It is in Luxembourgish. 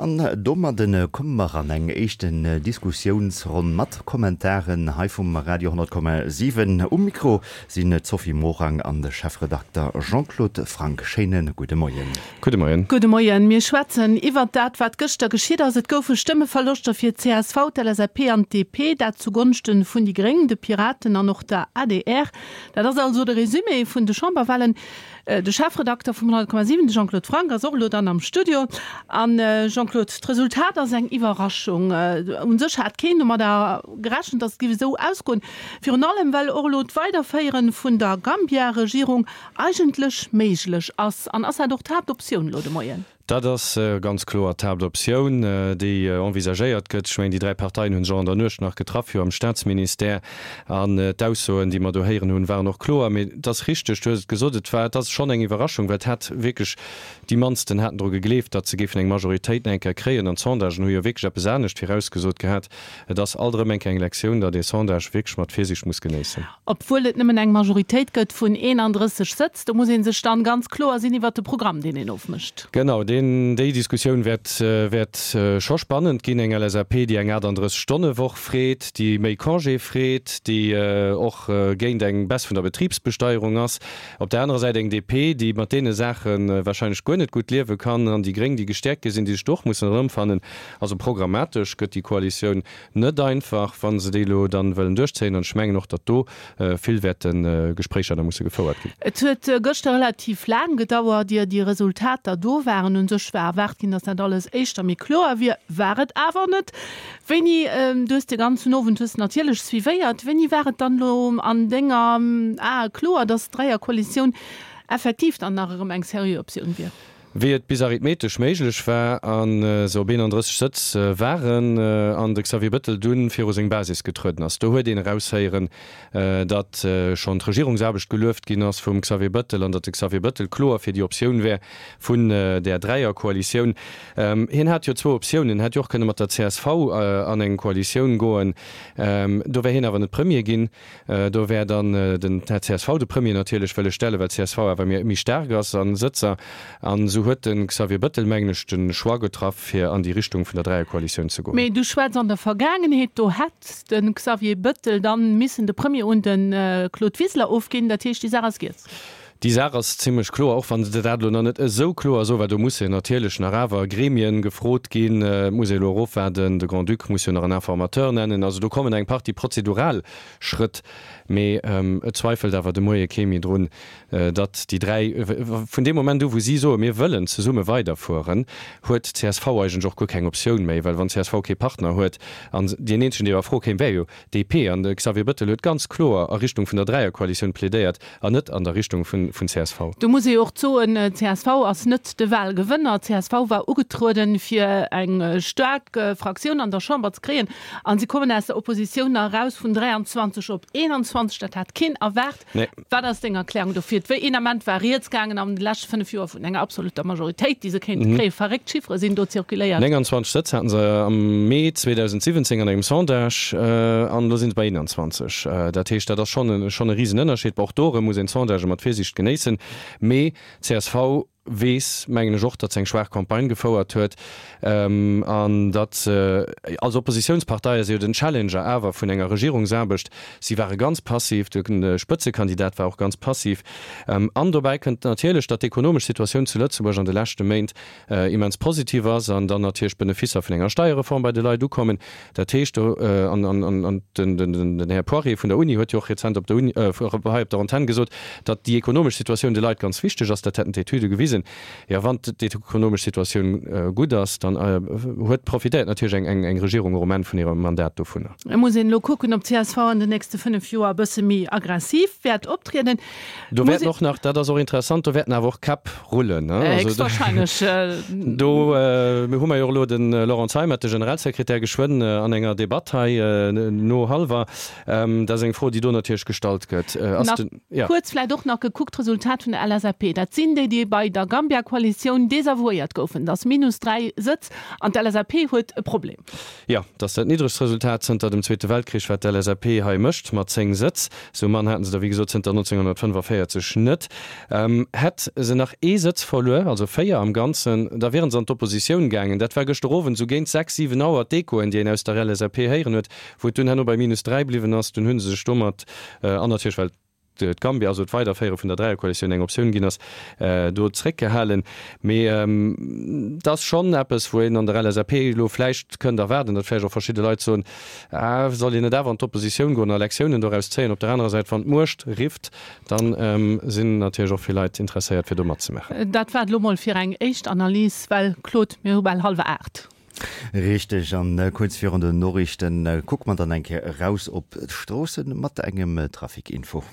An domadden komme mer an eng éischten Diskussiounsronn mat Kommentaren hei vum Radio 10,7. Um Mikro sinn d'Sophie Morang an de Chefredakter Jean-Claude Franck. Schéine gudde Moien. Gudde Moien. Gudde Moien. Mir schwätzen iwwert dat, wat gëschter geschitt ass. Et goufe Stëmmeverloschter fir d'CSV, d'LSAP an d'DP, dat zu Gonschte vun déi Gréng, de Piraten an och der adr. Dat ass also de Résumé vun de Chamberwahlen. De Chefredakter vum 100,7, de Jean-Claude Franck, ass och elo dann am Studio. An Jean-Claude, d'Resultat ass eng Iwwerraschung. U sech hat keen domadder gerechent, datt et géif esou ausgoen. Virun allem, well och elo d'Weiderféiere vun der Gambia-Regierung eigentlech méiglech ass. An ass dat och d'Haaptoptioun elo de Moien? Dat ass ganz kloer d'Haaptoptioun, déi envisagéiert gëtt. Ech mengen, déi 3 Parteien hu sech och an der Nuecht nach getraff, jo am Staatsministère. An d'Aussoen, déi mer do héieren hunn, waren och kloer. Mee et ass richteg, du hues et gesot, et war, et ass schonn eng Iwwerraschung, well et hat wierklech déi mannsten haten dru gegleeft, datt se géifen eng Majoritéit nach eng Kéier kréien. An d'Sondagen hu jo wierklech eppes anescht virausgesot gehat. Et ass alt erëm eng Kéier eng Lektioun, datt ee Sondage wierklech mat Virsiicht muss genéissen. Obwuel et nëmmen eng Majoritéit gëtt vun 31 Sëtz, do muss ee sech dann ganz kloer sinn iwwert de Programm, deen een ofmécht. Genau, deen, déi Diskussioun wäert, wäert scho spannend ginn. Eng LSAP, déi eng 38 Stonne Woch freet, déi méi Congé freet, déi och géint eng Baisse vun der Betribsbesteierung ass. Op där anerer Säit eng DP, déi mat deene Saache wahrscheinlech guer net gutt liewe kann, an déi Gréng, déi gestäerkt gi sinn, déi sech do och mussen erëmfannen. Also programmatesch gëtt déi Koalitioun net einfach, wa se déi elo dann wëllen duerchzéien. An ech mengen och, datt do vill wäerte Gespréicher da musse gefouert ginn. Et huet gëschter relativ laang gedauert, ier déi Resultater do waren. Un sech war erwaart ginn, datt dat alles éischter méi kloer wier. War et awer net. Wéini, du hues de ganzen Owend hues natierlech suivéiert, wéini war et dann elo an denger Ae kloer, datt d'Dräierkoalitioun effektiv dann nach erëm eng seriö Optioun wier? Wéi et bis arithmetesch méiglech war a se op 31 Sëtz waren an de Xavier Bëttel dunn viru seng Basis getrueden ass. Do huet een eraushéieren, datt schonn d'Regierungsaarbecht gelueft ginn ass vum Xavier Bëttel an datt de Xavier Bëttel kloer fir déi Optioun wär vun där Dräierkoalitioun. Hien hat jo zwou Optiounen, en hätt jo och kënne mat der csv an eng Koalitioun goen, do wär hien awer net Premier ginn. Do wär dann den Här csv de Premier natierlech wëlle stellen, well csv awer méi staark ass a Sëtzer. An esou huet de Xavier Bëttel, mengen ech, de Choix getraff, fir an déi Richtung vun der Dräierkoalitioun ze goen. Mee du schwätz an der Vergaangenheet, do hätt de Xavier Bëttel dann missen de Premier un de Claude Wiseler ofginn. Dat heescht, déi Saach ass giess. Déi Saach ass zimlech kloer, och wann se dat elo nach net esou kloer soen, well do musse natierlech nach awer Gremien gefrot ginn. Et muss ee elo erofwaarden, de Grand-Duc muss jo nach en Informateur nennen. Also do kommen eng Partie prozedural Schrëtt. Mee et zweifelt awer de Moie kee méi drun, datt déi 3, vun deem Moment u wou si soen, mir wëllen zesumme weiderfueren, huet csv eigentlech och guer keng Optioun méi, well wann csv kee Partner huet, an deen eenzegen, dee a Fro kéim, wär jo DP, an de Xavier Bëttel huet ganz kloer a Richtung vun der Dräierkoalitioun plädéiert, An net an der Richtung vun csv. Do muss ee jo och soen, csv ass net de Wahlgewënner. Csv war ugetrueden, fir eng staark Fraktioun an der Chamber ze kréien, a si kommen aus der Oppositioun nach eraus vun 23 op 21. Dat hat keen erwaart. Wat ass deng Erklärung dofir? Wéi een Ament war rieds gaangen an de leschte 5 Joer vun enger absolutter Majoritéit, déi se kéinte kréien. Verréckt Chiffere sinn do zirkuléiert. 29 Sëtz haten se am Mee 2017 an engem Sondage an elo sinn se bei 21. Dat heescht, dat ass schonn e schonn e Risenënnerscheed. Bon, och do erëm muss een d'Sondagë mat Virsiicht genéissen. Mee csv weess, mengen ech och, datt se eng schwaach Campagne gefouert huet an datt se als Oppositiounspartei ass se jo den Challenger awer vun enger Regierungsaarbecht. Si ware ganz passiv, de Spëtzekandidat war och ganz passiv. An dobäi kënnt natierlech, datt d'ekonomesch Situatioun zu Lëtzebuerg an de leschte Méint immens positiv ass an dann natierlech d'Benefisser vun enger Steierreform bei de Leit ukommen. Dat heescht do, an den Här Poirier vun der Uni huet jo och rezent op der Uni, hei op der Antenn gesot, datt déi ekonomesch Situatioun de Leit ganz wichteg ass. Dat hätten d'Etüde gewisen. Jo, wann d'ekonomesch Situatioun gutt ass, dann huet, profitéiert natierlech eng Regierung och um Enn vun hirem Mandat dovunner. Et muss een elo kucken, ob csv an den nächste 5 Joer e bësse méi aggressiv wäert optrieden. Do wäerten och nach, dat ass och interessant, do wäerten awer och Käpp rullen. Héchstwahrscheinlech. Do hu mer jo och elo de Laurent Zeimet, de Generalsekretär, geschwënn an enger Debatt hei no hallwer. Dat ass eng Fro, déi do natierlech gestallt gëtt. Nach kuerz vläicht och nach gekuckt, d'Resultat vun der LSAP, dat sinn déi, déi bei der. der Gambia-Koalitioun desavouéiert goufen. Dat ass minus 3 Sëtz an d'LSAP huet e Problem. Jo, dat ass dat niddregst Resultat zënter dem Zweete Weltkrich, wat d'LSAP hei mécht, mat 10 Sëtz. Sou mann haten se der wéi gesot zënter 1945 net. Hätt se nach ee Sëtz verluer, also 4 am Ganzen, da wieren se an d'Oppositioun gaangen. Dat war gëschter Owend sou géint 6, 7 Auer d'Echoen, déi een aus der LSAP héieren huet, wou et dunn herno bei minus 3 bliwwen ass. Dunn hu se sech domat, an natierlech well d'Gambia, also d'Weiderféiere vun der Dräierkoalitioun eng Optioun ginn ass, do zréckgehalen. Mee et ass schonn eppes, wou een an der LSAP elo vläicht kënnt erwaarden, datt vläicht och verschidde Leit soen, Ah, soll een net awer an d'Oppositioun goen a Lektiounen doraus zéien? Op der anerer Säit, wann d'Muecht rifft, da sinn natierlech och vill Leit interesséiert, fir do matzemaachen. Dat war et elo mol fir eng éischt Analys, well, Claude, mir hu bal hallwer 8. Richteg, an kuerz virun den Noriichten kucke mer dann eng Kéier eraus op d'Stroossen mat engem Trafic-Info.